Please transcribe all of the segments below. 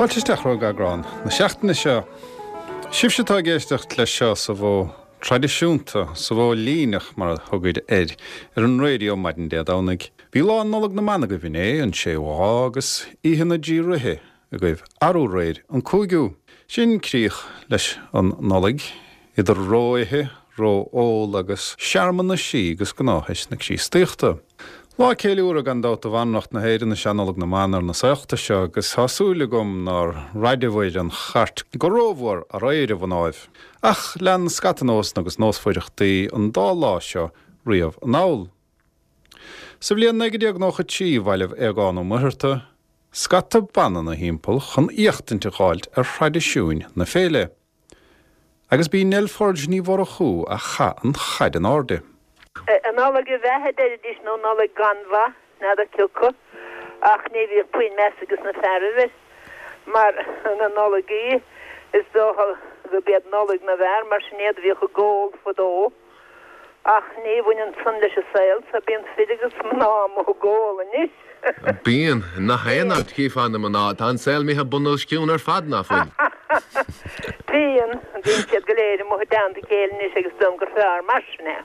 Fáilte isteach chuig eagrán na seachtaine seo. Sibhse atá ag éisteacht leis seo sa mhodh traidisiúnta, sa mhodh líneach mar a thugaid air, ar an raidió maidin Dé Domhnaigh. Bhí lá Nollag na mBan agaibh inné, an séú lá, agus Oíche na dTrí Ríthe agaibh arú aréir, an cúigiú. Sin críoch leis an Nollaig, idir ró-ithe, ró-ól agus searmanaisí agus gnáthaisc na Críostaíochta. Lá ceiliúrtha gan dabht do bhanracht na hÉireann is ea Nollaig na mBan ar na saolta seo agus tá súil agam nár raideabhair an chairt go rómhór aréir, a mhnáibh. Ach lean scata nósanna agus nósmhaireachtaí an dá lá seo riamh anall. Sa bhliain 1993 bhailigh Aogán Ó Muircheartaigh scata ban ina thimpeall chun éachtaint a dh'fháilt ar thraidisiúin na féile. Agus b'í Nell Forde Ní Mhurchú a chaith an chaid in airde. An Nollaig a bheatha a deiridís nó Nollaig gan mhaith, n'fheadar cioca, ach ní bhíodh puinn meas ages na fearaibh air, mar na Nollaigí, is dócha go b'iad Nollaig na bhfear, mar sin iad a bhíodh ag ól fadó. Ach ní bhaineann san leis an saol so, bíonn fir agus mná amuigh ag ól anois. Bíonn. Nach aon áit chífeá na mná, tá an saol imithe bun os cionn ar fad, ná fuil? Bíonn. Bíonn siad go léir amuigh i dteannta a chéile anois agus is dóigh liom gur fearr mar sin é.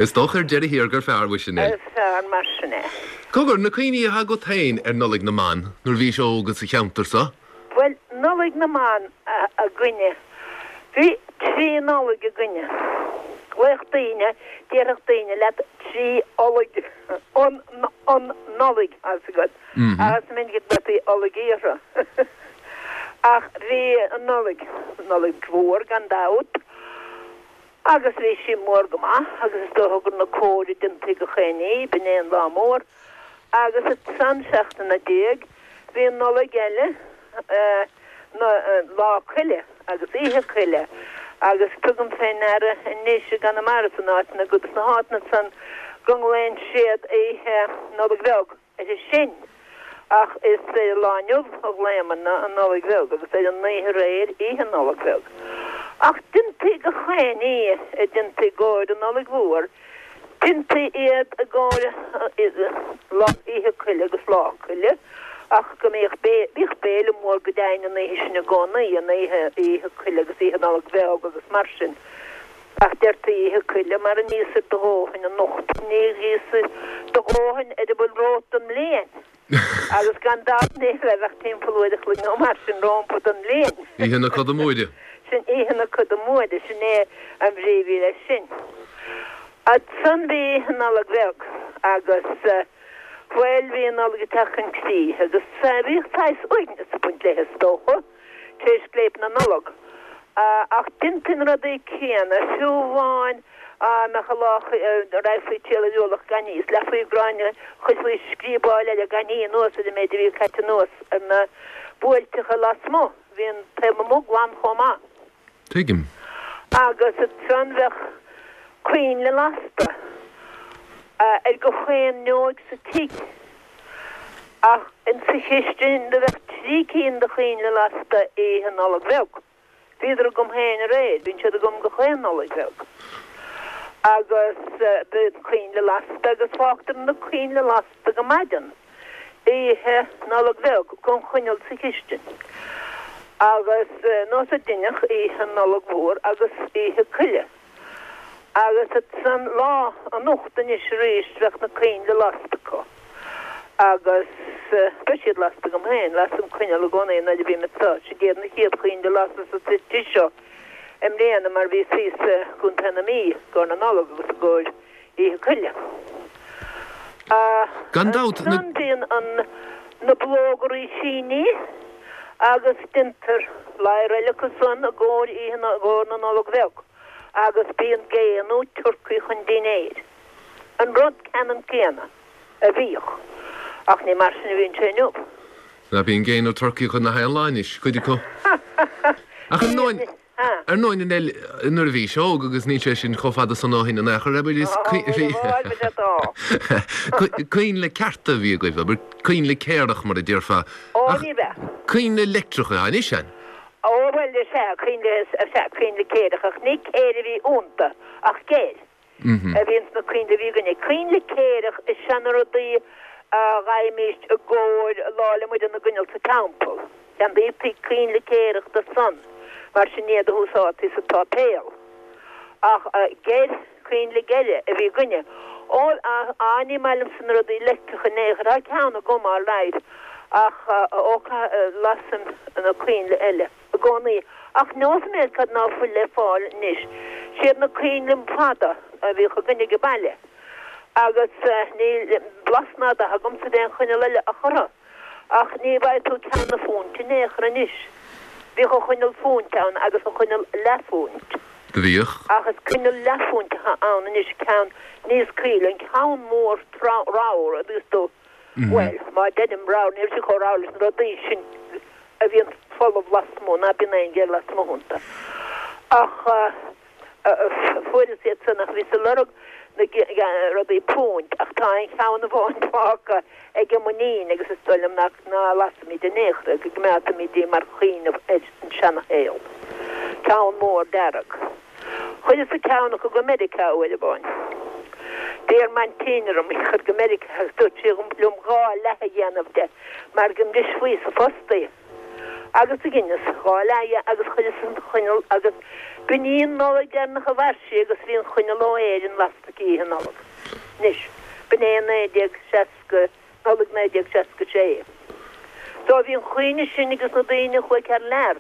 Is dócha ar deireadh thiar gur fearr, mhuise Nell. Is fearr mar sin é. Cogar, na cuimhní atá agat féin ar Nollaig na mBan nuair a bhís óg sa cheantar so? Bhuel, Nollaig na mBan againne, bhí trí Nollaig againne. Ghlaodh daoine, déarfadh daoine leat trí Ollaig, an, an Nollaig, tá 'fhios agat, ach is minic a ghlaotaí Ollaigí orthu. Ach bhí an Nollaig, Nollaig Mhór gan dabht, agus bhí sí mór go maith agus is dócha gur na comhair a déantaí gach aon ní, b'in é an lá mór. Agus ansan seachtain ina diaidh bhí an Nollaig eile, Lá Coille agus Oíche Coille agus tugaim fé ndeara anois i gConamara san áiteanna go sna háiteanna san go nglaonn siad Oíche Nollag Bheag uirthi sin ach is ar an lá inniu a ghlaomarna an Nollaig Bheag agus ar an oíche aréir Oíche Nollag Bheag. Ach déantaí gach aon ní a déantaí i gcomhair an Nollaig Mhór Déantaí iad i gcomhair Oíche Coille agus Lá Coille ach go mbíodh bíodh béile mór go deimhin an oíche sin i gcónaí, an oíche Oíche Coille agus Oíche Nollag Bheag agus mar sin. Ach deirtí Oíche Coille mar ní íosfair do dhóthain anocht, ní íosfair do dhóthain ar a bhfuil romhat don mbliain. Agus gan dabht ní raibh ach timpeall uair a chloig nó mar sin rompu don mbliain. Oíche na Coda Móire. Sin Oíche na Coda Móire, sin é an bhrí a bhí leis sin. Ansan bhí Oíche Nollag Bheag agus, bhuel, bhí an Nollaig ag teacht chun críche agus bhíodh saghas uaigneas ag baint léi is dócha, tar éis scléip na Nollag. Ach déantaí na rudaí céanna, fiú amháin dá mbeadh an lá, raghfaí triall ar ualach gan ní, is leathfaí gráinne, chuirfí scríobáil eile gan ní anuas ar an méid a bhí caite anuas ar na buailteacha lasmuigh, bhí an taobh amuigh glan chomh maith. Tuigim. Agus ansan bheadh coinnle lasta ar gach aon fhuinneoig sa tigh. Ach insa chistin do bheadh trí cinn de choinnle lasta oíche Nollag Bheag. Bhíodar agam féin aréir, bíonn siad agam gach aon Nollaig Bheag. Agus bíonn coinnle lasta agus fágtar na coinnle lasta go maidin oíche Nollag Bheag gan choinneal sa chistin. Agus nós a deineadh oíche Nollag Mhór agus oíche Coille. Agus ansan lá anocht anois arís bheadh na coinnle lasta acu. Agus beidh siad lasta agam féin, lasaim coinneal i gcónaí nuair a bhím anseo. Siad iad na chéad choinnle a lasas sa tigh seo i mbliana mar bhíos thíos i gContae na Mí i gcomhair na Nollag agus i gcomhair Oíche Coille. Gan dabht, na. Ansan bíonn an na bulóga rísíní agus déantar ladhar eile acu san i gcomhair oíche i gcomhair na Nollag Bheag. agus bíonn gé nó turcaí chun dinnéir. An rud ceannann céanna a bhíodh, ach ní mar sin a bhíonn sé inniu. Ná bíonn gé nó turcaí chun na haon lá anois, cuid acu. Ach ar ndóin, ar ndóin, a Nell, nuair a bhís óg, agus níl sé sin chomh fada san ó shin in aon chor, abair, is coinnle cearta a bhí agaibh, abair, coinnle céarach mar a déarfá. Ó, ní bheadh. Coinnle leictreacha atá anois, an? Ó, bhuel, is ea, coinnle, is ea, coinnle céireach, ach ní céir a bhí iontu, ach geir a bhí ins na coinnle a bhí againne. Coinnle céireach is ea na rudaí. A dh'fhaighimíst i gcomhair Lá 'le Muire na gcoinneal sa teampall. Cheannaítaí coinnle céarach do san, mar sin iad a húsáidtí sa tsáipéal. Ach geir, coinnle geire a bhí againne. Ó, á, ní maith liomsa na rudaí leictreacha in aon chor. Tá ceann agam all right, ach ó, lasaim na coinnle eile i gcónaí. Ach neosfaidh mé cad ná fuil le fáil anois. Siad na coinnle fada a bhíodh againne age baile. Agus níl blas ná dath agamsa d'aon choinneal eile ach orthu. Ach ní bhfaighidh tú ceann na phúint in aon chor anois. Bhíodh an choinneal phúint ann agus an choinneal leathphúint. Do bhíodh. Ach is coinneal leathphúint atá ann anois, ceann níos caoile, an ceann mór ramhar, a dtuigeanns tú. Bhuel, má deirim ramhar, ní raibh sé chomh ramhar leis na rudaí sin a bhíonn folamh lasmuigh, ná bíonn aon gheir lasmuigh iontu. Ach. Fuaireas iad san ach bhíos ag lorg na rudaí púint ach tá aon cheann amháin fágtha ag m'iníon agus is dóigh liom nach ná lasfaimid in aon chor é, go gcoimeádfaimid í mar chuimhneamh ar an seanashaol. Ceann mór dearg. Chuireas-sa ceann acu go Meiriceá uair amháin. D'iarr m'aintín orm í a chur go Meiriceá agus dúirt sí liom gá leath a dhéanamh de mar go mbrisfí sa phost í. Agus do dheineas gá leath dhe agus chuireas an choinneal agus b'in í an Nollaig deireanach a mhair sí agus bhí an choinneal ó Éirinn lasta aici Oíche Nollag. Anois, b'in é 1960, Nollaig 1966. So bhí an chuimhne sin ages na daoine a chuaigh thar lear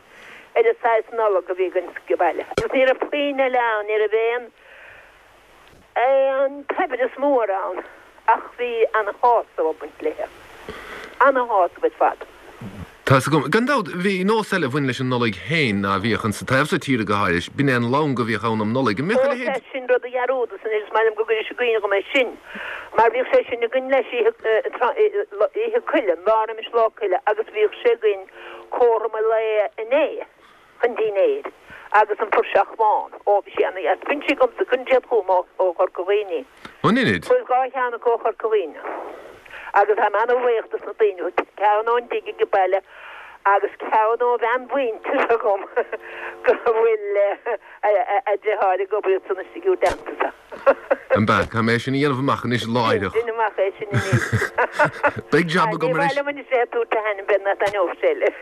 ar an saghas Nollag a bhí againn sa bhaile. Agus ní raibh puinn eile ann, ní raibh aon. Aon tsaibhreas mór ann ach bhí ana-shásamh ag baint léithe. Ana-shásamh ar fad. Tá's agam. Gan dabht, bhí nós eile a bhain leis an Nollaig féin ná bhíodh insa taobh so tíre go háirid, b'in é an long a bhíodh ann um Nollaig. An mbíodh a Ó, leithéid? sea, sin rud a dhearúdas anois, is maith liom go gcuiris i gcuimhne dhom é sin, mar bhíodh sé sin againn leis oíche, oíche Coille, an lá roimis Lá Coille, agus bhíodh sé againn cothrom an lae inné. chun dinnéir, agus an puirseach bhán. Ó, bhí sé ana-dheas. Bíonn sí agamsa, cuireann siad chugam ó Chorca Dhuibhne í. An Inid? Fuaireas gá cheann acu ó Chorca Dhuibhne. Agus táim ana-bhuíoch dos na daoine, ceann ón dtigh age baile agus ceann ó bhean mhuinteartha dhom go bhfuil a deartháir ag obair ansan istigh i dteannta sa. An b'ea? Caithfidh mé é sin a dhéanamh amach anois láithreach. Déan amach é sin anois. Beidh jab Ní agam maith anois. liom anois bheith ag tabhairt a hainm, b'fhéidir nach dtaitneodh sé leis.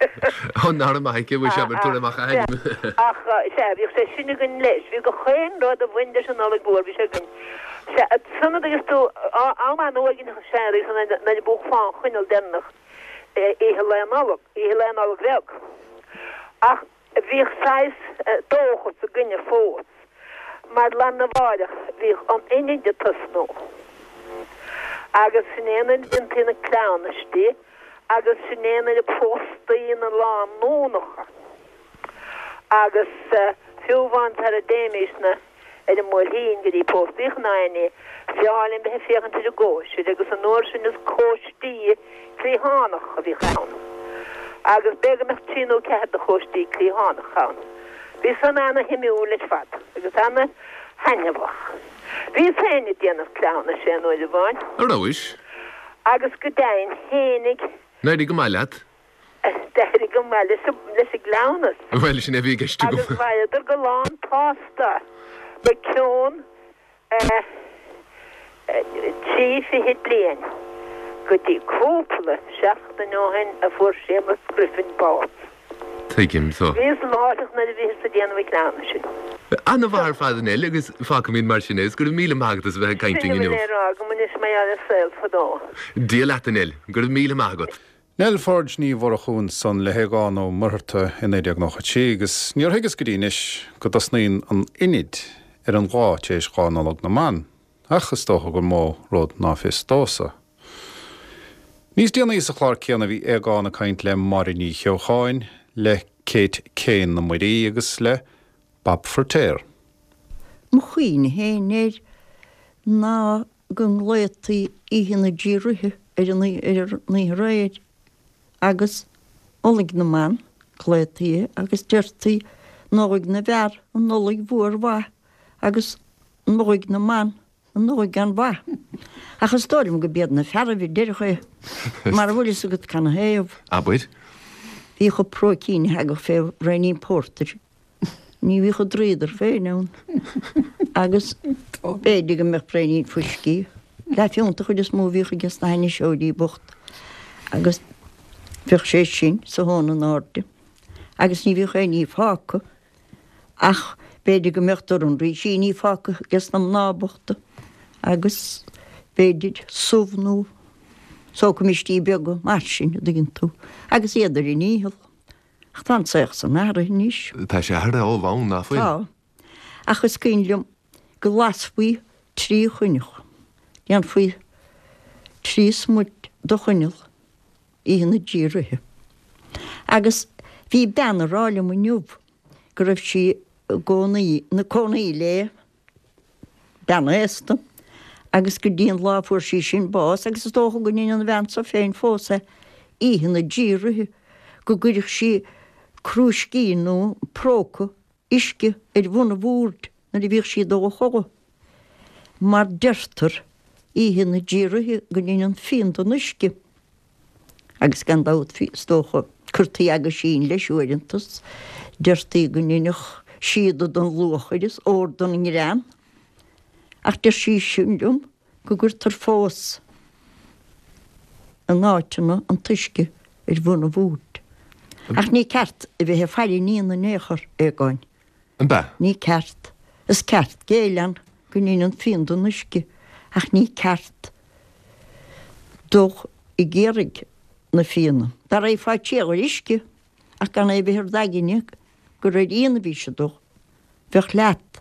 Ó, nára maith aici, bhfuil sé ag tabhairt amach a hainm. Ach, sea, bhíodh sé sin againn leis. Bhí gach aon rud a bhain leis an Nollaig Mhór, bhí sé againn. Sea, ansan agus tú, am an-uaigneach, sea, agus nuair a mhúchfá an choinneal deireanach oíche Lae Nollag, oíche Lae Nollag Bheag. Ach Bhíodh saghas dóchas againne fós, mar lá arna mháireach bhíodh an Inid ag tosnú, agus sin é nuair a déantaí na cleamhnaistí agus sin é nuair a phóstaí na lánúnacha, agus fiú amháin sara dtéimísne ar an mBuailtín go dtí póstaí ná aon ní, b'fhearr linn bheith ag féachaint ar an gcóisir agus an uair sin is cóistí cliathánach a bhíodh ann agus b'fhéidir go mbeadh trí nó ceathair de chóistí cliathánach ann. Bhí san ana-shuimiúil ar fad agus ana-thaitneamhach. Bhíos féin ag déanamh cleamhnais aon uair amháin. A rabhais? Agus go deimhin tháinig. D'éirigh go maith leat? D'éirigh go maith leis an gcleamhnas. Bhuel, sin é a bhí i gceist agam. Agus mhaireadar go lán tsásta go cionn 30 bliain go dtí cúpla seachtain ó shin a fuair Séamus Griffin bás. Tuigim so. Bhíos láithreach nuair a bhíothas ag déanamh an chleamhnais sin. Ana-mhaith ar fad a Neil agus fágfaimid mar sin é is go raibh míle maith agat as a bheith ag caint Sin linn a bhfuil inniu. le rá agam anois mar gheall ar saol fadó. Dia leat a Neil, go raibh míle maith agat. Nell Pháid Ní Mhurchú ansan le hAogán Ó Muircheartaigh i 1993 agus níor thuigeas go dtí anois go dtosnaíonn an Inid ar an lá tar éis Lá Nollag na mBan, ach is dócha gur mó rud ná fios domhsa. Níos déanaí sa chlár céanna bhí Aogán ag caint le Máire Ní Cheocháin, le Kate Kane na Muirí agus le Bob Feiritéar. Mo chuimhne féin air ná go nglaotaí Oíche na dTrí Ríthe ar an oíche aréir agus Nollaig na mBan, glaotaí é agus deirtí Nollaig na bhFear, an Nollaig mhór mhaith agus Nollaig na mBan, an Nollaig gan mhaith. Ach is dóigh liom go b'iad na fearaibh a deireadh é, mara bhfuil fhios agat canathaobh. Abair. Bhíodh an próicín a thagadh fé bhraoinín pórtair. Ní bhíodh an dríodar féin ann agus b'fhéidir go mbeadh braoinín fuiscí. Leathphiúnta an chuid is mó a bhíodh aige sna hainniseoirí bochta agus bheadh sé sin sa thóin in airde agus ní bhíodh aon ní fágtha ach b'fhéidir go mbeadh dorn rísíní fágtha aige sna mná bochta agus b'fhéidir subh nó sócaimistí beaga mar sin, a dtuigeann tú, agus iad ar a ndícheall. Ach tá an saol san athraithe anois. Tá sé athraithe ó bhonn, ná fuil? Tá. Ach is cuimhin liom go lasfaí trí choinneal, dhéanfaí trí smut de choinneal oíche na dTrí Ríthe. Agus bhí bean ag rá liom inniu go raibh sí i gcónaí, ina cónaí le bean aosta agus go dtí an lá a fuair sí sin bás, agus is dócha go ndeineann an bhean so féin fós é, oíche na dTrí Ríthe, go gcuireadh sí crúiscín nó próca uisce ar bhun an bhoird nuair a bhíodh sí ag dul a chodladh. Mar deirtear oíche na dTrí Ríthe go ndeineann fíon den uisce. Agus gan dabht is dócha cuirtí aguisín leis uaireanta 's deirtí go ndeinfeadh síoda den luachair is ór den ngrean. Ach deir sí sin liom go gcuirtear fós in áiteanna an t-uisce ar bhun an bhoird. Ach ní ceart a bheith ag faire an fhíona in aon chor, a Aogáin. An b'ea? Ní ceart. Is ceart géilleadh go ndeineann fíon den uisce, ach ní ceart dul ag iarraidh na fíona. Dá raghfá triall ar uisce ach gan é a bheith ar d'aigne gur ar fhíon a bhís ag dul, bheadh leat.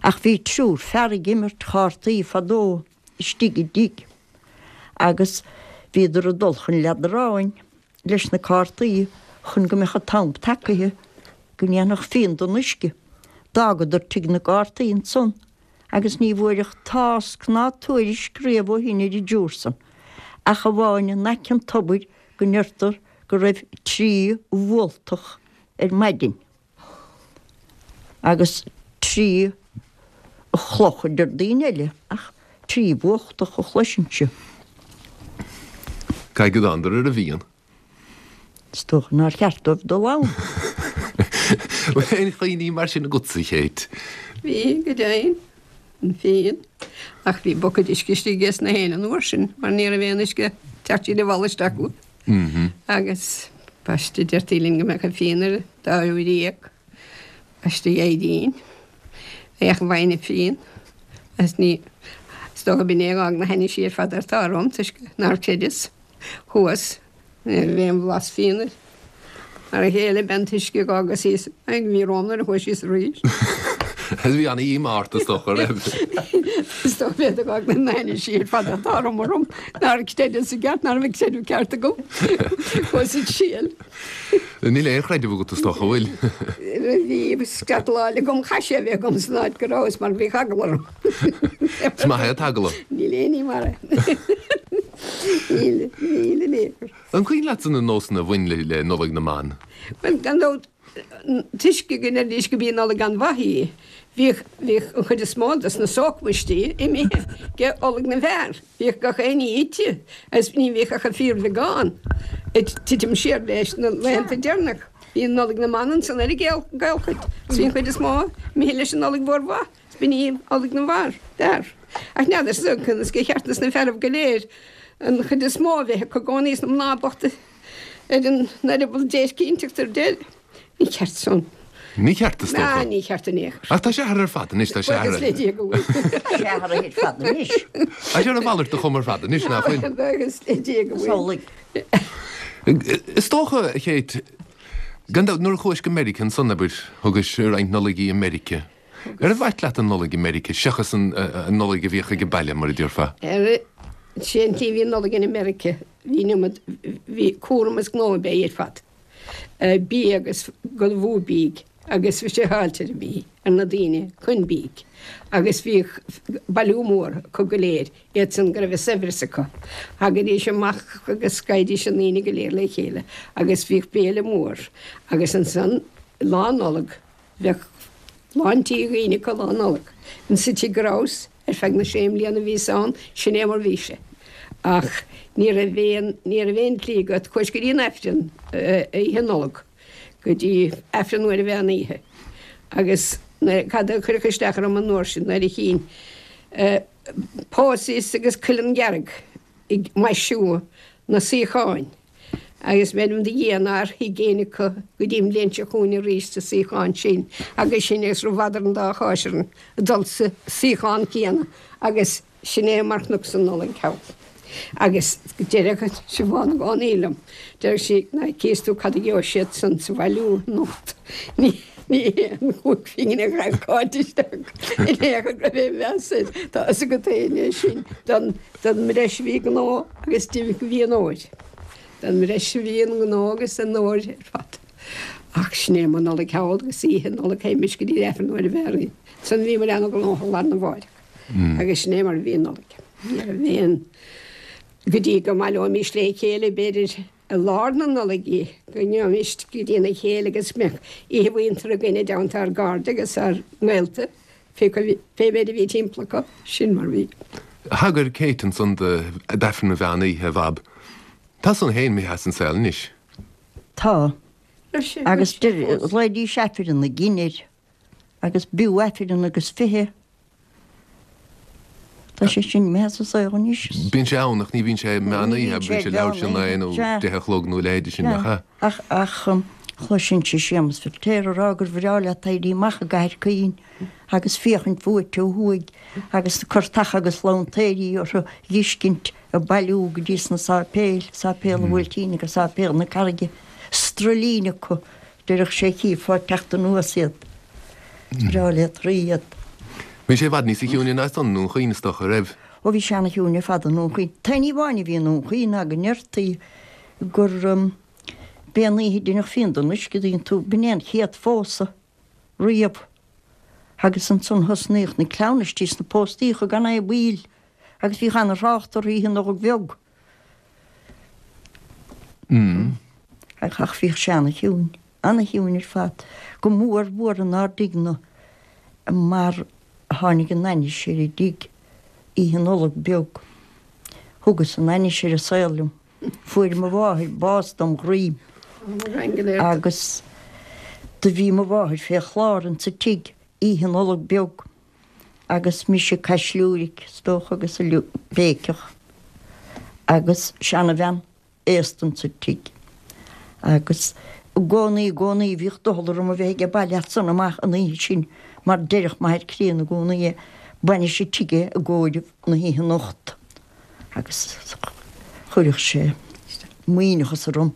Ach bhí triúr fear ag imirt chártaí fadó istigh i dtigh agus bhíodar ag dul chun leadráin leis na cártaí chun go mbeadh an t-am tagaithe go ndéanfadh fíon den uisce. D'fhágadar tigh na gcártaí ansan agus ní bhfuaireadh tásc ná tuairisc riamh ó shin ar an dtriúr san, ach amháin in aice an tobair go ndeirtear go raibh trí bhualtach ar maidin. Agus trí chloch a deir daoine eile, ach trí bhualtach a chloisinnse. Caithfidh go dtánadar ar an bhfíon. Is dócha nár cheart dóibh dul ann. Bhfuil aon chuimhní mar sin agatsa, a Chéit? Bhí, go deimhin. An fíon. Ach bhí bucaid uisce istigh ages na héinne an uair sin, mar ní raibh aon uisce ag teacht tríd an bhfalla isteach acu. Agus baiste deirtí linn go mbeadh an fíon ar an dá uair dhéag. Baiste Aedín. Bheadh an bhainne fíon. Agus ní, is dócha b'in é a dh'fhág na hainnise ar fad atá orm toisc nár chreideas. Chuas. Ní raibh aon bhlas fíon air. Mar a chéile b'é an t-uisce a dh'fhágas thíos a bhí romham nuair a chuaigh síos arís. Bhí ana-dhíomá ort is dócha, raibh? Is dócha b'é a d'fhág na hainnise ar fad atá orm orm nár chreideas i gceart, ná raibh an creideamh ceart agam. Chuas ag triail. Níl aon chreideamh agat is dócha, an bhfuil? Bhí scairt láil agam, chaith sé a bheith agam san áit go rabhas mar bhí eagla orm. Is maith é an t-eagla. Níl aon ní mar é. Níl, níl in aon chor. An cuimhin leatsa na nósanna a bhain le Nollaig na mBan? Bhuel, gan dabht, toisc go ndeiridís go b'í Nollaig an-mhaith í, bhíodh, bhíodh an chuid is mó dos na sócmhaistí imithe go Nollaig na bhfear. Bhíodh gach aon ní ite agus ní bhíodh ach an fíorbheagán ag titim siar leis na laethanta deireanach. Bhí an Nollaig na mBan ansan ar an gcaolchuid agus bhí an chuid is mó imithe leis an Nollaig mhór mhaith. B'in í Nollaig na bhfear, bhfear. Ach n'fheadar conas gur cheart dos na fearaibh go léir an chuid is mó a bheith acu i gcónaí is na mná bochta ar an eireaball déirc inteacht ar deireadh. Ní ceart san. Ní ceart is dócha. Ná ní ceart in aon chor. Ach tá sé athraithe ar fad anois, tá sé athraithe. Buíochas le Dia go bhfuil. Tá sé athraithe ar fad anois. Tá sé ar a mhalairt de chuma ar fad anois, ná fuil? Buíochas le Dia go bhfuil. Samhlaigh. Is dócha, a Chéit, gan dabht, nuair a chuais go Meiriceá ansan, abair, thugais roinnt Nollaigí i Meiriceá. Ar mhait leat an Nollaig i Meiriceá seachas an Nollaig a bhíodh ag an baile, mar a déarfá? Ar, sé an tslí a bhí an Nollaig in Meiriceá, bhí an iomad, bhí cúram is gnó ab ea í ar fad. Bia agus go mhó bídh agus bhí sé fáilte ar an bhí, ar na daoine chun bídh. Agus bhíodh bailiú mór acu go léir, iad san go raibh a saibhreas acu. Thagaidís amach agus gabhaidís na ndaoine go léir le chéile agus bhíodh béile mór agus ansan Lá Nollag, Bheadh lán tí dhaoine acu Lá Nollag. Insa tigh go rabhas, ar feadh na sé mbliana a bhíos ann, sin é mar bhí sé. Ach ní raibh aon, ní raibh aon tslí agat, chuais go dtí an Aifreann oíche Nollag, go dtí Aifreann uair an mheán oíche. Agus nuair, cad a chuirfeadh isteach orm an uair sin, nuair a chínn. Posies agus cuileann dhearg ag maisiú na suíocháin agus m'anam do Dhia nár shuigh éinne acu go dtí an bhliain seo chugainn arís sa suíochán sin agus sin agus rabhadar an dá cháis orainn ag dul sa suíochán céanna agus Sin é mar chonacsa an Nollaig thall. Agus deireadh Siobhán i gcónaí liom, deireadh sí, ná cíos tú cad a gheobhaidh siad san sa bhailiú anocht. Ní hé an chúig phingin a chaith Cáit isteach in aon chor go raibh aon mheas air. Tá fhios agat féin é sin don mbreis a bhí gnó agus d'imigh go bhí an óir. Don mbreis a bhí an gnó agus an óir ar fad. Ach sin é mo Nollaig thall agus oíche Nollag théimis go dtí an Aifreann nuair a bheadh orainn. Ansan bhíomar ana-ghnóthach lá arna mháireach. Agus sin é mar a bhí an Nollaig. Ní raibh aon, go dtí go mbaileoimis le chéile b'fhéidir i lár na Nollag í, go ngabhaimis go dtína chéile agus go mbeadh oíche mhuinteartha againn i dteannta ár gcairde agus ár ngaolta, pé méid a bhí timpeall acu, sin mar a bhí. Thagair Kate ansan d'Aifreann an Mheán Oíche, a Bhab. Tá san féin imithe as an saol anois. Tá. Agus ghlaoidís Aifreann na gCinn air. Agus b'fhiú Aifreann agus 20. Tá sé sin imithe as an saol anois. Bíonn sé ann ach ní bhíonn sé meán oíche, bíonn sé leathuair tar éis a naoi nó deich a chlog nó a leithéide sin, nach ea? Ach, ach chloisinnse Séamus Feiritéar ag rá gur bhreá leat éirí amach i gCathair Chaoin agus féachaint uait ó thuaidh agus na curtacha agus lantaeirí orthu dh'fheiscint ag bailiú go dtí sna sáipéil, Sáipéal an Bhuailtín agus Sáipéal na Carraige, stroillín acu Deireadh sé chífeá ag teacht anuas iad. Is breá leat rá iad. Bhí sé i bhfad níosa chiúine ná san i nDún Chaoin is dócha, raibh? Ó bhí sé ana-chiúin ar fad i nDún Chaoin. T-aon ní amháin a bhí i nDún Chaoin ná go ndeirtí gur b'é an oíche a deineadh fíon den uisce, an dtuigeann tú, b'in é an chéad phósadh riamh. Agus ansan thosnaíodh na cleamhnaistí is na póstaíocha gan aon mhoill agus bhíodh ana-thrácht orthu oíche Nollag Bheag. Ach bhíodh sé ana-chiúin, ana-chiúin ar fad, go mór mhór inár dtigh-ne mar tháinig an ainnis ar an dtigh Oíche Nollag Beag. Thugas an ainnis ar an saol liom. Fuair mo mháthair bás dom dhroim agus do bhí mo mháthair fé chlár insa tigh Oíche Nollag Beag. agus mise ag caisliúiric, is dócha, agus ag béiceach, agus seanabhean aosta insa tigh. Agus i gcónaí, i gcónaí, bhíodh doicheall orm a bheith age baile as san amach an oíche sin, mar deireadh m'athair críonna i gcónaí é, bainis an tigh é i gcomhair na hoíche anocht. Agus chuirfeadh sé maoithneachas orm.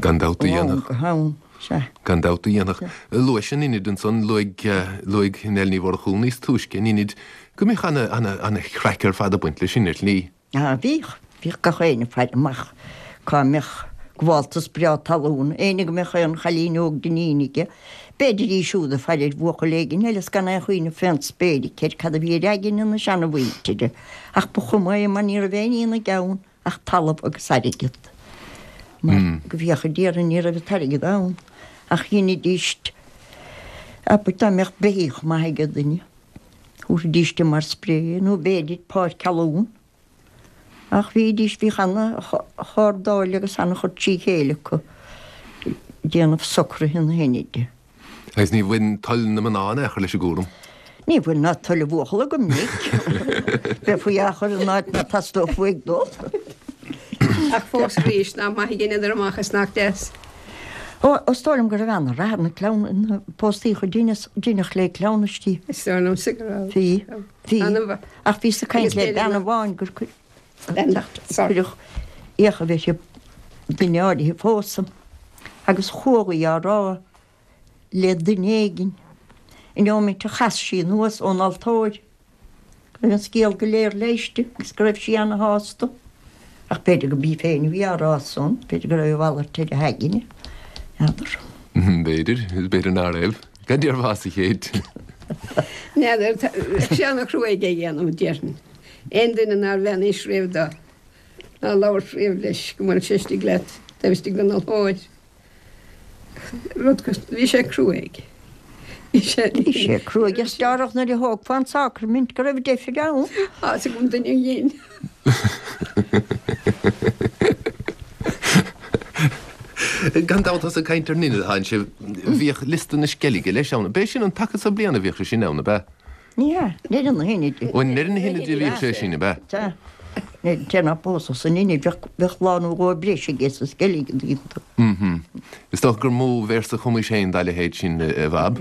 Gan dabht a dhéanfadh. Go ham, sea. Gan dabht a dhéanfadh. Luais an Inid ansan, luaigh, luaigh Nell Ní Mhurchú níos túisce an Inid, go mbíodh ana, ana, ana chraic ar fad ag baint leis sin ar shlí. Ah, bhíodh. Bhíodh gach éinne ag faire amach cá mbeadh gabháltas breá talún, éinne go mbeadh aon chailín óg d'iníon aige, b'fhéidir í siúd ag faire ar bhuachaill éigin eile is gan aon chuimhneamh fén spéir aici ar cad a bhí ar aigne na seanamhuintire. Ach ba chuma é mar ní raibh aon ní ina gceann ach talamh agus airgead. Mar go bhfiacha déarfainn ní raibh an t-airgead ann ach dheinidíst, abair dá mbeadh beithíoch maith ag duine, thabharfaidíst é mar spré nó b'fhéidir páirc thalún. Ach bhídís, bhíodh ana-chardáil agus ana-chur trí chéile acu ag déanamh socruithe na hInide. Agus ní bhain toil na mná in aon chor leis an gcúram? Ní bhain ná toil an bhuachalla go minic. Bheifí á chur in áit ná teastódh uaidh dul. Ach fós arís, nach maith a dheineadar amach is nach deas. Ó, is dóigh liom go raibh ana-rath ar na cleamh, na póstaíocha deineadh le cleamhnaistí. Is dóigh liomsa go raibh. Bhí, bhí. Ach bhíos ag caint le bean amháin gur cuireadh fhiacha a bheith duine áirithe a phósadh agus chuaigh í á rá le duine éigin an neomat a chas sí anuas ón altóir go raibh an scéal go léir leighiste agus go raibh sí ana-shásta. Ach b'fhéidir go b'í féin a bhí á rá san, b'fhéidir go raibh a mhalairt ar a haigne, n'fheadar. B'fhéidir, is b'fhéidir ná raibh. Cad déarfása a Chéit? N'fheadar, bheadh sé ana-chruaidh é a dhéanamh, déarfainn. Aon duine nár bheannaís riamh dó, ná labhairt riamh leis go mbeadh sé istigh leat taobh istigh den altóir. Rud, bhí sé cruaidh. Bhí sé. Bhí sé cruaidh is dearfach nuair a thógfá an sacraimint go raibh deifir ann. Tá 'fhios agam duine a dhein. Gan dabht ós ag caint ar an Inid atánn sibh, bhíodh liosta na Sceilge leis ann. B'é sin an taca so bliana a bhíodh sé sin ann, ab ea? Ní hea, i ndeireadh na hInide. Ó, i ndeireadh na hInide a bhíodh sé sin, ab ea? Sea. An té ná pósadh san Inid, bheadh lá nó dhó breise aige sa sceilg, an dtuigeann tú. Mm-hm. Is dócha gur mó véarsa a chumais féin dá leithéid sin, a Bhab.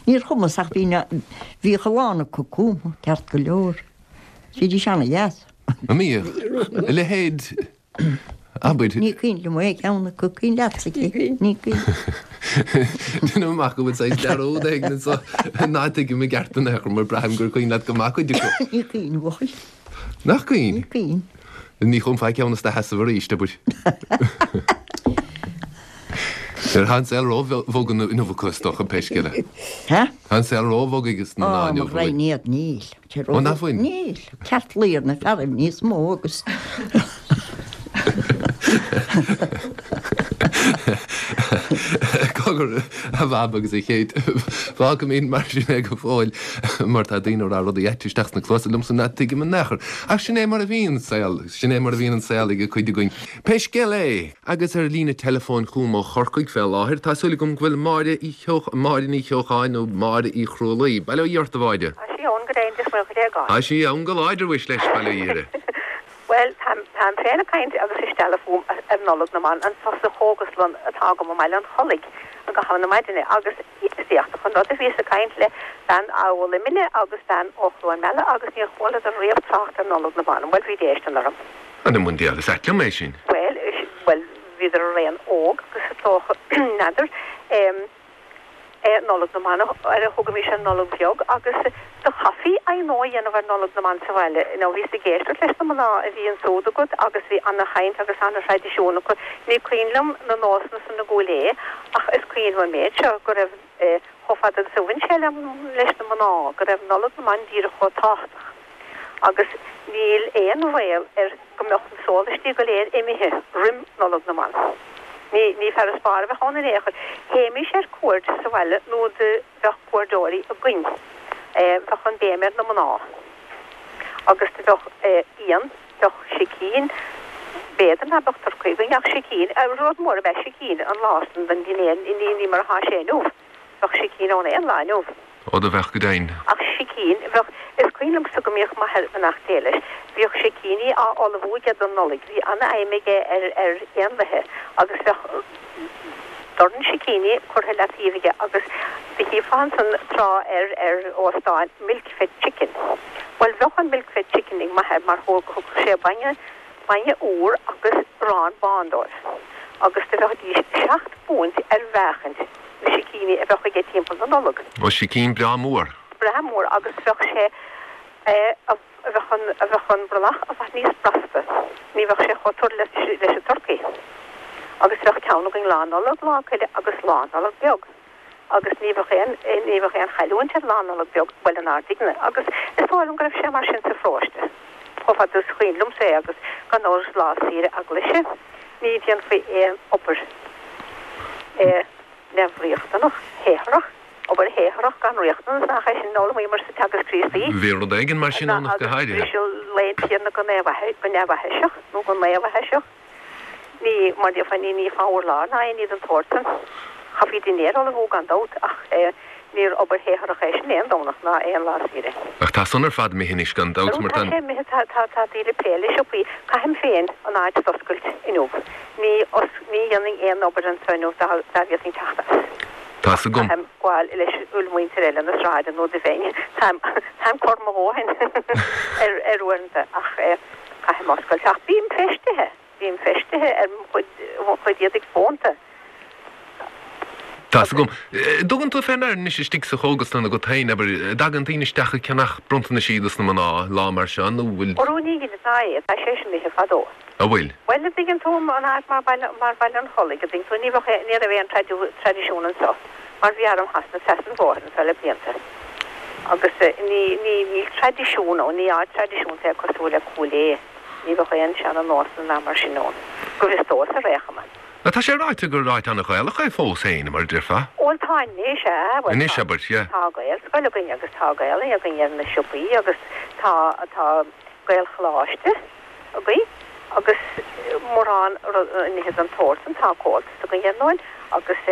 Níor chumas ach bhí na, bhíodh a lán acu cumtha, ceart go leor. Bhídís ana-dheas. An mbíodh? A leithéid, abair. Ní cuimhin liom aon cheann acu, cuimhin leatsa, ní cuimhin. Déanaim amach go bhfuil saghas dearúd éigin anso ná tuigim i gceart in aon chor mar braithim gur cuimhin leat go maith cuid acu. Ní cuimhin, a bhuachaill. Nach cuimhin? Ní cuimhin. Ní chumfá ceann as do sheasamh arís, abair. Tá an saol ró-bhog inniu acu is dócha, pé scéal é. Tá an saol ró-bhog ages na mná inniu. Ó, mo ghraidhin iad, níl. Ó, nach bhfuil? Níl. Ceart luí ar na fearaibh níos mó agus. Cogar, a Bhab agus a Chéit, fágfaimid mar sin é go fóill mar tá daoine ag rá rudaí aite isteach sna cluasa liomsa ná tuigim in aon chor. Ach sin é mar a bhíonn an saol, sin é mar a bhíonn an saol ag cuid againn. Pé scéal é! Agus ar líne teileafóin chugam ó Chorcaigh fé láthair, tá súil agam go bhfuil Máire Uí Cheoch, Máire Ní Cheocháin nó Máire Uí Chrualaoi. Bail ó Dhia ort, a Mháire. Tá sí ann go deimhin, Dia is Muire Dhuit. Tá sí ann go láidir, mhuis leis, bail ó Dhia uirthi. Bhuel, táim, táim féin ag caint agus ag stealladh fúm ar Nollaig na mBan anso sa chógaslann atá agam i mBaile an Chollaigh i gcaitheamh na maidine agus is éachtach an rud é, bhíos ag caint le bean ó Luimneach agus bean ó Chluain Meala agus níor chualadar riamh trácht ar Nollaig na mBan. Bhuel, bhí déistin orm. An i mbun diabhail, is ait liom é sin. Bhuel, bhuel, bhíodar araon óg agus is dócha, n'fheadar, em, eh, Nollaig na mBan, ar a thugaimis an Nollaig Bheag agus do chaithfí aghnó a dhéanamh ar Nollaig na mBan sa bhaile. Now bhíos ag éisteacht leis na mná a bhí ansúd agat agus bhí ana-chaint agus ana-thraidisiún acu. Ní cuimhin liom na nósanna san i gCúil Aodha ach is cuimhin liom an méid seo, go raibh, eh, chomh fada agus a bhain sé le, leis na mná, go raibh Nollaig na mBan díreach chomh tábhachtach. Agus níl aon bhaol ar go mbeadh na sólaistí go léir imithe roim Nollaig na mBan. Ní, ní farasbarr a bheadh ann in aon chor. Théimís ar cuaird sa bhaile nó do bheadh cuairdeoirí againn. Bheadh an béim ar na mná. Agus do bheadh fíon, bheadh sicín, b'fhéidir ná beadh turcaí againn ach sicín, rud mór ab ea sicín an lá san don dinnéar, ní, ní mar atá sé inniu. Bheadh sicín ann aon lá inniu. Ó do bheadh go deimhin. Ach sicín, bheadh, is cuimhin liomsa go mbíodh m'athair, beannacht Dé leis, bhíodh sicíní á ullmhú aige don Nollaig, bhí ana-fheidhm aige ar, ar éanlaithe agus bheadh dorn sicíní curtha leataobh aige agus do chífeá ansan tráth ar, ar óstáin milk fed chicken. Bhuel bheadh an milk fed chicken ag m'athair mar thógadh sé bainne, bainne úr agus arán bán dóibh agus do bheidís seacht bpúint ar mheáchaint. na sicíní a bheadh aige timpeall na Nollag. Ó, sicín breá mór. Breá mór agus bheadh sé, a bheadh an, a bheadh an brollach i bhfad níos brasta, ní bheadh sé chomh tur leis, leis an turcaí. Agus bheadh ceann againn Lá Nollag, Lá Coille agus Lá Nollag Beag. Agus ní bheadh aon, ní bheadh aon chailliúint ar Lá Nollag Beag, bhuel inár dtigne. Agus is dóigh liom go raibh sé mar sin sa pharóiste, chomh fada is cuimhin liomsa é agus gan amhras lá saoire eaglaise. Ní dhéanfaí aon obair neamhriachtanach, shaothrach, obair shaothrach gan riachtanas, nach é sin a d'fhoghlaimíomar sa Teagasc Críostaí? Bhí rud éigin mar sin ann ach go Agus háirithe. briseadh lae an Tiarna go neamhaithiseach, nó go naomhaithiseach. Ní, mar déarfá, ní nífeá urlár ná aon ní den tsórt san. Chaithfí dinnéar a ullmhú gan dabht, ach níor obair shaothrach é sin aon Domhnach ná aon lá saoire. Ach tá san ar fad imithe anois gan dabht, mar tá. Tá sé imithe, tá, tá, tá daoine ag plé le siopaí. Caithim féin an áit d'oscailt inniu. Ní, ní dhéanfainn aon obair anseo inniu dá, dá bhféadfainn teacht as. Tá's agam. Caithim gabháil leis an mhuintir eile na sráide nó do bheinn, táim, táim corr mo dhóthain ar, ar uaireanta ach eh caithim oscailt. Ach bím feistithe. Bím feistithe ar mo chuid, mo chuid éadaigh fónta. Tá's agam. Dtugann tú fé ndear anois istigh sa chógaslann agat féin, abair, an dtagann daoine isteach ag ceannach bronntanaisí dos na mná, lá mar seo, nó bhfuil. Orú ní dheineann ná é, tá sé sin imithe fadó. An bhfuil? Bhuel, an dtuigeann tú, an áit mar Baile, mar Baile an Chollaigh, an dtuigeann tú, ní bheadh, ní raibh aon traidisiún anseo, mar bhí arm Shasana trasna an bhóthair anseo le blianta. Agus ní, ní, níl traidisiún ann, ní áit traidisiúnta é cosúil le Cúil Aodha. Ní bheadh aon seana nósanna ná mar sin ann, go bhfios domhsa ar aon chuma. Ach tá sé ráite gur áit an-Ghaelach é fós féin, mar a déarfá. Bhuel tá anois, ea, bhuel Anois, abair, yeah. tá Gaelscoil againn agus tá Gaelainn againn ar na siopaí agus tá, tá Gaelcholáiste againn agus mórán nithe den tsórt san, tá Comhaltas againn ar ndóin agus.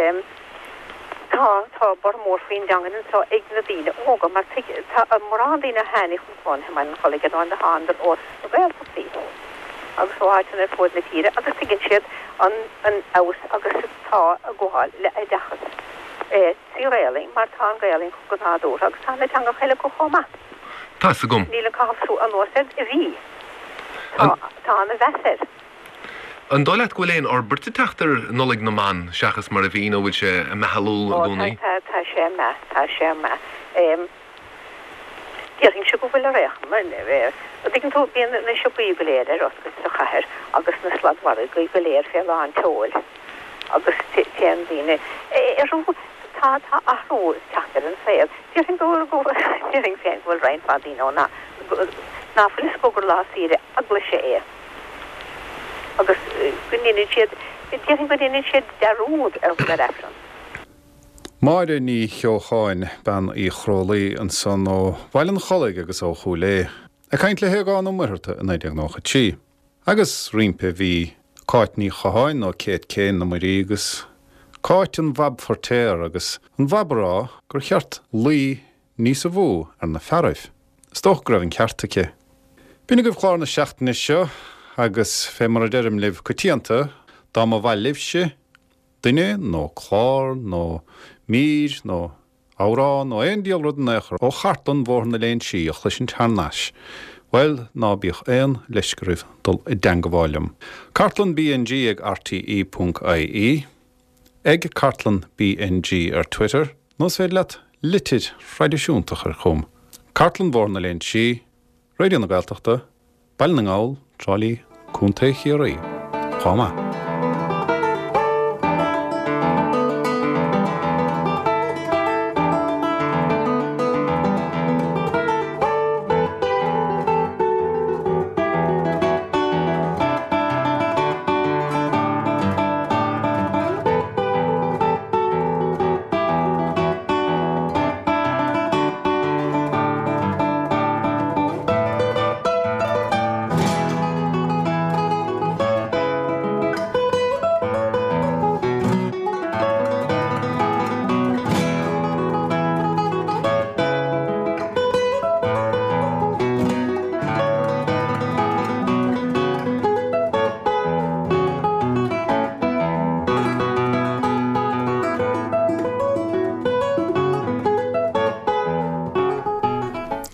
Tá, tá borradh mór faoin dteangain anso ag na daoine óga mar tuig, tá mórán daoine a tháinig chun cónaithe i mBaile an Chollaigh ar ndóigh, thánadar ós na Gaeltachtaí agus ó áiteanna ar fuaid na tíre agus tuigeann siad an an fheabhas agus atá ag gabháil le oideachas trí Ghaelainn mar tá an Ghaelainn acu go nádúrtha agus tá na teangacha eile acu chomh maith. Tá's agam. Níl an caitheamh anuas air a bhí. Tá, tá ana mheas air. An dóigh leat go bhfuil aon fhorbairt ag teacht ar Nollaig na mBan seachas mar a bhí nó bhfuil sé ag meathlú i Ó, tá, gcónaí? tá, tá sé ag meath, tá sé ag meath. Déarfainnse go bhfuil ar aon chuma. An dtuigeann tú, bíonn na siopaí go léir ar oscailt sa chathair agus na sladmhargaí go léir fé lán tseoil agus téann daoine orthu. Tá, tá athrú ag teacht ar an saol. Déarfainn go, go, déarfainn féin go bhfuil roinnt mhaith daoine ann ná fuil fhios acu gur lá saoire eaglaise é. agus go ndeineann siad, déarfainn go ndeineann siad dearúd ar dhul ar Aifreann. Máire Ní Cheocháin, Bean Uí Chrólaí, ansan ó Bhaile an Chollaigh agus ó Chúil Aodha, ag caint le hAogán Ó Muircheartaigh i 1993. Agus roimpi bhí Cáit Ní Chatháin nó Kate Kane na Muirí agus Cáit an Bhab Feirtéar agus an Bhab a rá gur cheart luí níosa mhó ar na fearaibh. Is dócha go raibh an ceart aici. B'in agaibh clár na seachtaine seo agus fé mar a deirim libh coitianta, dá mba mhaith libhse duine nó clár nó mír nó amhrán nó aon diabhal rud in aon chor ó chartlann Bhóthar na Léinsí a chloisint thar n-ais, bhuel, ná bíodh aon leisce oraibh dul i dteangabháil liom. Cartlann BNG ag rte ponc ie. Ag Cartlann BNG ar Twitter, nó is féidir leat litir thraidisiúnta a chur chugam. Cartlann Bhóthar na Léinsí, Raidió na Gaeltachta, Baile na nGall, Trá Lí, Contae Chiarraí. Chomh maith.